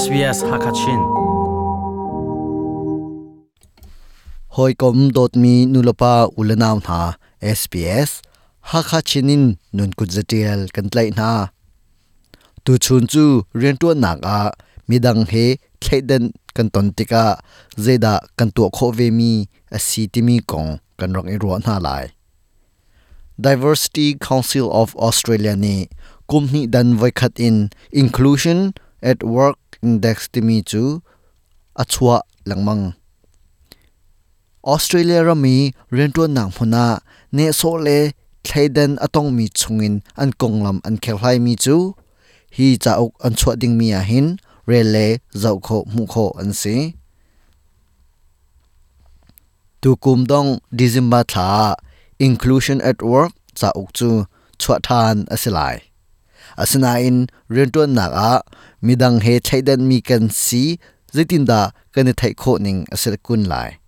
SBS Hakachin. Hawikom dawtmi nulepa ulenau hna SBS Hakachin in nun kut zatial kan tlaih hna. Tuchun cu riantuannak ah midang he thleidan kan ton tikah zeidah kan tuah khawh vemi a si timi kong kan rak i ruah hna lai. Diversity Council of Australia nih kum hnih dan voikhat in Inclusion at Work Index timi cu a chuah lengmang. Australia ram i rianṭuannak hmun ah nehsawh le thleidan a tongmi chungin an konglam an kherhlaimi cu hi cauk an chuah dingmi ahhin rel le zoh khawh hmuh khawh an si. Tukum dong December thla ah Inclusion at Work cauk cu chuah ṭhan a si lai. Asinain rianṭuannak ah midang he thleidanmi kan si zeitindah kan i theih khawh ning a si kun lai.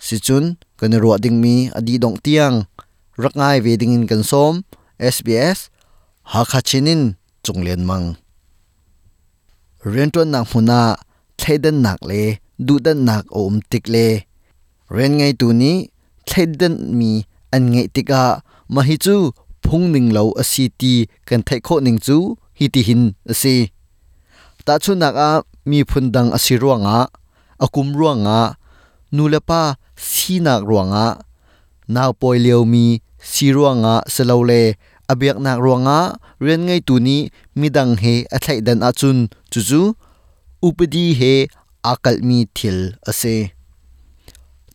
Sicun kan i ruah dingmi a dih dongh tiang rak ngai ve dingin kan sawm. SBS Hakha Chin in Cung Lian Mang. Rianṭuannak hmun ah thleidannak le duhdanhnak a um tik le rian ngeitu nih thleidanmi an ngeih tikah mah hi cu phung ning lo a si ti kan theih khawh ning cu hitihin a si. Tahchunhnak ah miphun dang a si ruangah, a kum ruangah, nulepa sinak ruangah, naupawi liomi si ruangah silole a biaknak ruangah rian ngeitu nih midang he a thleidan ahcun cucu upadi he aa kalhmi thil a si.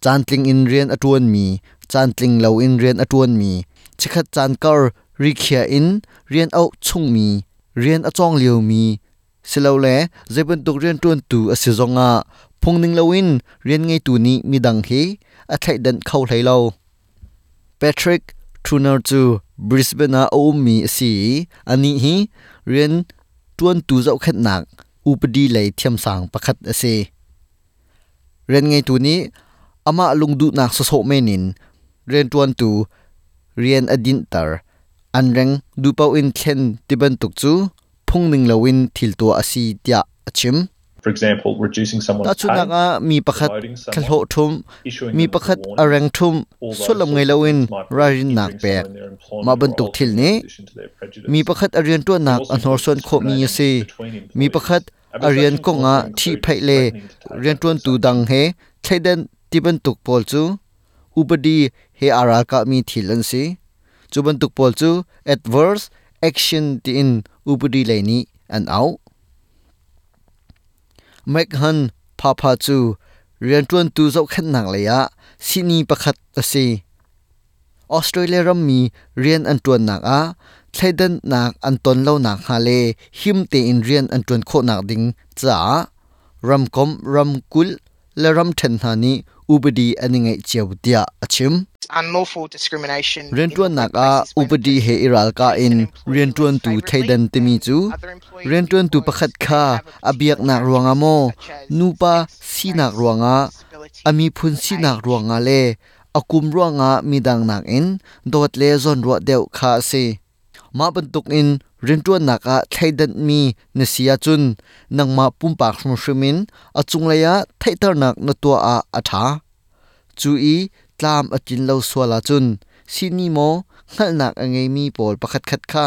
Caantling in rian a ṭuanmi, caantling loin rian a ṭuanmi, chikkhat caan kar rikhiah in rian auh chungmi, rian a cawng liomi silole zeibantuk rianṭuantu a si zongah phungning loin rian ngeitu nih midang he a thleihdanh kho hlei lo. Patrick Truner cu Brisbane ah a ummi a si i anih hi rian ṭuantu zohkhenhnak upadi lei thiamsang pakhat a si. Rian ngeitu nih amah lungduhnak sawsawh men in rianṭuantu rian a dinhter, an reng duhpaoh in thlen tibantuk cu phungning loin thil tuah a si tiah a chim. For example, reducing someone's Tahchunhnak pay, ah mi pakhat demoting someone, thlahlawh ṭhumh, issuing mi them with a pakhat warning, a reng ṭhumh, all those sullam sorts ngei of loin things might be ralrinnak injuring pek. someone in their Mah employment or bantuk thil altering their nih position to their prejudice. mi pakhat a It rianṭuannak also a includes hnorsuan khawhmi a discriminating si. between Mi employees. pakhat A a rian discussion can kong also ah include ṭhihphaih le threatening to take adverse rianṭuantu dang action. he thleidan ti bantuk pawl cu upadi he aa ralkahmi thil an si. Cu bantuk pawl cu adverse action tiin upadi lei nih an auh. McHan Phapha cu rianṭuantu zohkhenhnak lei ah sihni pakhat a si. Australia rammi rian an ṭuannak ah thleidannak an ton lo nakhnga le him tein rian an ṭuan khawhnak ding caah ramkomh, ramkulh le ramṭhen hna nih upadi an i ngeih cio tiah a chim. Unlawful discrimination in the Rianṭuannak workplace ah is when a upadi he person i ralkah treats in an employee less rianṭuantu favourably thleidan timi than cu other employees rianṭuantu because pakhat they kha have a a particular biaknak ruangah characteristic maw, such as nupa sex, sinak race, ruangah, disability, a miphun or sinak age. ruangah le a kum ruangah midang nakin dawt le zawnruah deuh kha a si. Mah bantukin rianṭuannak ah thleidanhmi na si ahcun nangmah pumpak hrimhrim in a cunglei ah theihternak na tuah ah a ṭha. Cu i tlam a tlin lo sual ahcun sihni maw hngalhnak a ngeimi pawl pakhatkhat kha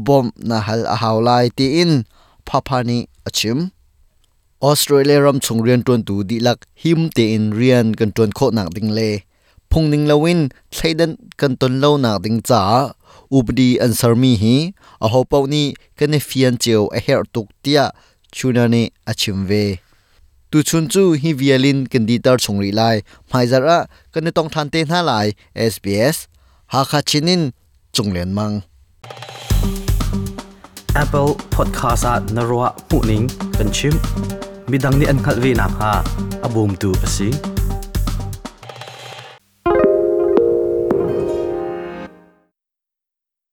bawmh na hal a hau lai tiin Phapha nih a chim. Australia ram chung rianṭuantu dihlak him tein rian kan ṭuan khawhnak ding le phungning loin thleidan kan ton lonak ding caah upadi an sermi hi ahopaoh nih kan i fian cio a herh tuk tiah Chuna nih a chim ve. Tuchun cu hi vial in kan dihter chung rih lai. Hmaizarh ah kan i tong ṭhan te hna lai. SBS Hakha Chin in Cung Lian Mang. Apple Podcast ah na ruah hmuhning kan chim. Midang nih an hngalh ve nakhnga a bawmtu a si.